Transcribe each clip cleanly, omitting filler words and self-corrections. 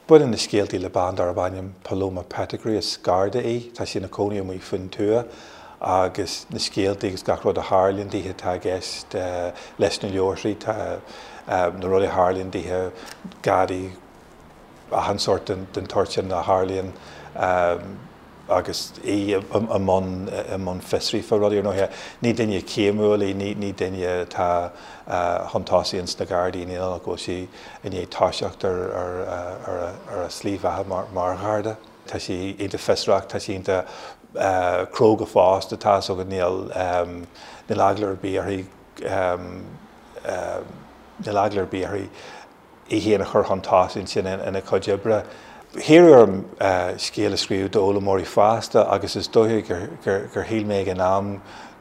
Baineann na scéaltaí le bean darb ainm Paloma Pettigrew, is Garda í, tá sí ina cónaí amuigh faoin tuath agus na scéaltaí agus gach rud a tharlaíonn dithe atá i gceist leis na leabharthaí, tá na rudaí a tharlaíonn dithe, Gardaí, achan sórt den tsórt sin a tharlaíonn agus í i mbun i mbun fiosraithe fá rudaí. Ar ndóighe, ní duine céimiúil í, ní duine atá chun tosaigh ins na Gardaí, ní nach bhfuil sí i ndiaidh toiseacht ar ar a slí bheatha mar Gharda. Tá sí iontach fiosrach, tá sí iontach cróga fosta, tá 'fhios agat, níl níl eagla ar bith uirthi níl eagla ar bith uirthi í féin a chur chun tosaigh ansin ina cuid oibre. Hiarradh orm scéal a scríobh d'fhoghlaimeoirí fásta agus is dóiche gur shíl mé ag an am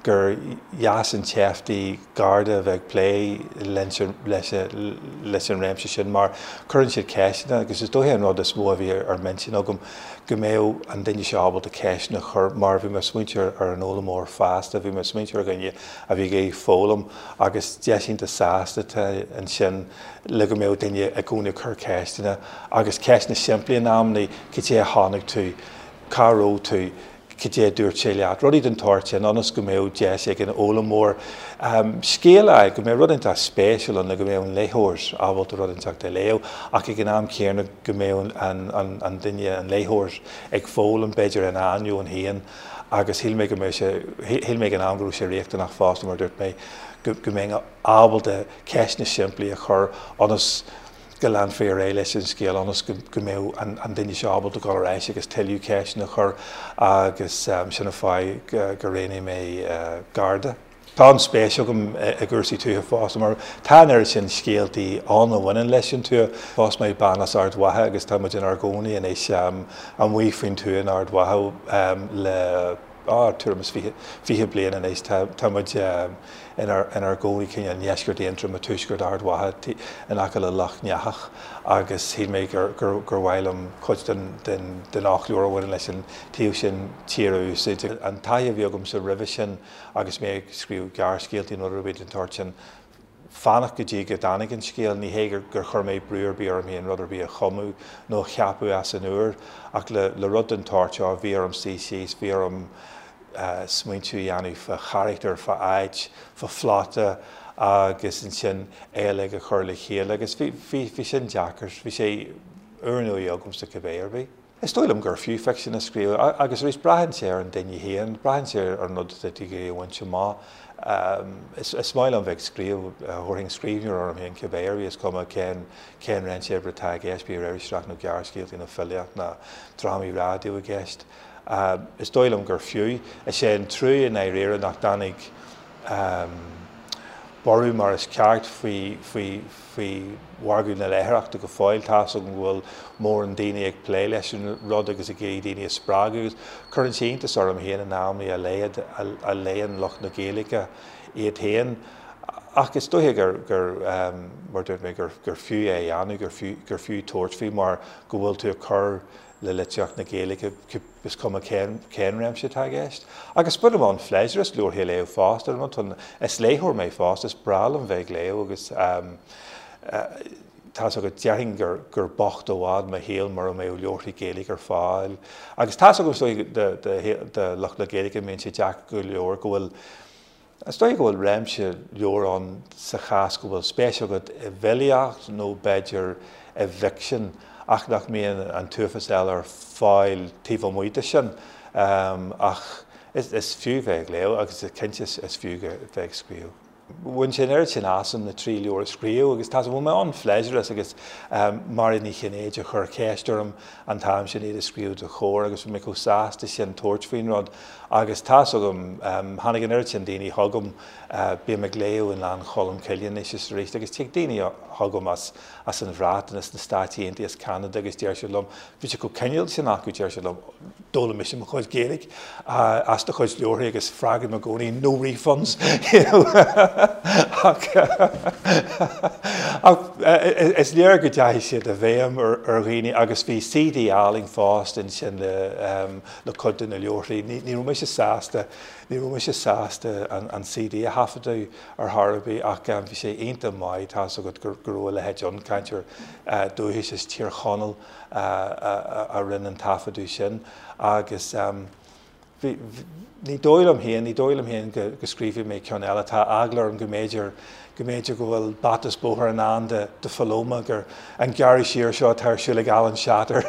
gur dheas an tseift í Garda a bheith ag plé leis an réimse sin mar cuireann siad ceisteanna agus is dóiche an rud is mó a bhí ar m'intinn agam go mbeadh an duine seo ábalta ceisteanna a chur mar bhí mé ag smaointiú ar an fhoghlaimeoir fásta, bhí mé ag smaointiú ar dhuine a bhí ag iarraidh foghlaim agus deis iontach sásta atá ansin le go mbeadh duine i gcónaí ag cur ceisteanna agus ceisteanna simplí in amannaí, cad é a chonaic tú, cá raibh tú, cad é a dúirt sé leat, rudaí den tsórt sin ionas go mbeadh deis ag an fhoghlaimeoir scéal a fháil, go mbeadh rud inteacht spéisiúil ann le go mbeadh an léitheoir ábalta rud inteacht a léamh ach ag an am céanna go mbeadh an duine, an léitheoir, ag foghlaim b'fhéidir ina ainneoin féin. Agus shíl mé go mbeadh sé, shíl mé ag an am go raibh sé riachtanach fosta, mar a dúirt mé, go mbeinn ábalta ceisteanna simplí a chur ionas go leanfaí ar aghaidh leis an scéal, ionas go mbeadh an duine seo ábalta dul ar ais agus tuilleadh ceisteanna a chur agus sin an fáth gur roghnaigh mé Garda. Tá an-spéis agam i gcúrsaí tuaithe fosta mar tá an oiread sin scéaltaí ann a bhaineann leis an tuath. Phós mé bean as Ard Mhacha agus tá muid inár gcónaí anois amuigh faoin tuath in Ard Mhacha le tuairim is 20 bliain anois. Tá muid inár gcónaí cineál i ndeisceart Aontroma, tuaisceart Ard Mhacha, in aice le Loch nEathach agus shíl mé gur mhaith liom cuid den fhoclóir a bhaineann leis an taobh sin tíre a úsáid. An taithí a bhí agamsa roimhe sin agus mé ag scríobh gearrscéaltaí nó rud ar bith den tsórt sin, fanacht go dtí go dtáinig an scéal. Ní hé gur chuir mé brú ar bith orm féin rud ar bith a chumadh nó a cheapadh as an úr, ach le rud den tsórt seo, bhí orm suí síos, bhí orm smaointiú a dhéanamh fá charachtar, fá áit, fá phlota agus ansin é uilig a chur le chéile agus bhí, bhí sin deacair. Bhí sé úrnua agamsa cibé ar bith. Is dóigh liom gur fiú ficsean a scríobh, agus arís, braitheann sé ar an duine féin, braitheann sé ar an rud atá tú ag iarraidh a bhaint amach. Is maith liom bheith ag scríobh, thabharfainn scríbhneoir orm féin cibé ar bith, is cuma cén cén réimse oibre atá i gceist, bíodh iriseoireacht nó gearrscéaltaí nó filíocht nó drámaí raidió i gceist. Is dóigh liom gur fiú. Is é an trua i ndáiríre nach dtáinig borradh mar is ceart faoi faoi faoi mhargadh na léitheoireachta go fóill. Tá's agam go bhfuil mórán daoine ag plé leis an rud agus ag iarraidh daoine a spreagadh agus cuireann sé iontas orm féin in amannaí a laghad a léann lucht na Gaeilge iad féin. Ach is dóiche gur, gur, mar a dúirt mé, gur, gur fiú é a dhéanamh, gur fiú, gur fiú tabhairt faoi mar go bhfuil tú ag cur le litríocht na Gaeilge, is cuma cén réimse atá i gceist. Agus bainim an-phléisiúr as leabharthaí a léamh fosta, is léitheoir mé fosta, is breá liom bheith ag léamh agus tá's agat, déarfainn gur bocht i bhfad mo shaol mura mbeadh leabharthaí Gaeilge ar fáil. Agus tá's agam is dóigh do lucht na Gaeilge, mbíonn sé deacair go leor go bhfuil Is dóigh go bhfuil réimse leabhar ann sa chás go bhfuil spéis agat i bhfilíocht nó b'fhéidir i bhficsean ach nach mbíonn an t-uafás eile ar fáil taobh amuigh de sin. Ach is fiú bheith ag léamh agus cinnte is fiú bheith ag scríobh. Bhain sé an oiread sin asam na trí leabhar a scríobh agus tá bhain mé an-phléisiúr as agus Mairéad Ní Chinnéide a chuir ceist orm an t-am sin iad a scríobh do Chomhar agus bhí mé chomh sásta sin tabhairt faoin rud Agus tá's agam, tháinig an oiread sin daoine chugam, bím ag léamh i nGleann Cholm Cille anois is arís, agus tig daoine chugam as as an Bhreatain, as na Stáit Aontaithe, as Ceanada agus deir siad liom, bhí siad chomh cineálta sin acu, deir siad liom, d'fhoghlaim mise mo chuid Gaeilge as do chuid leabharthaí agus freagraím i gcónaí, no refunds, you know ach ach is léir go dteachaigh siad i bhfeidhm ar ar dhaoine agus bhí CD álainn fosta ansin le le cuid de na leabharthaí. Ní raibh mise sásta Ní raibh mise sásta an CD a thaifeadadh ar chor ar bith ach bhí sé iontach maith, tá's agat go raibh a leithéid ann, cainteoir dúchais as Tír Chonaill a rinne an taifeadadh sin agus bhí, ní dóigh liom féin, ní dóigh liom féin go scríobhfaidh mé ceann eile, tá eagla orm go mb'fhéidir, go mb'fhéidir go bhfuil bata is bóthar i ndán do Phaloma, gur an gearradh siar seo atá ar siúl ag Alan Shatter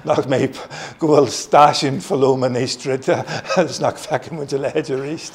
nach mbeidh, go bhfuil stáisiún Phaloma anois druidte agus nach bhfeicfidh muid a leithéid arís.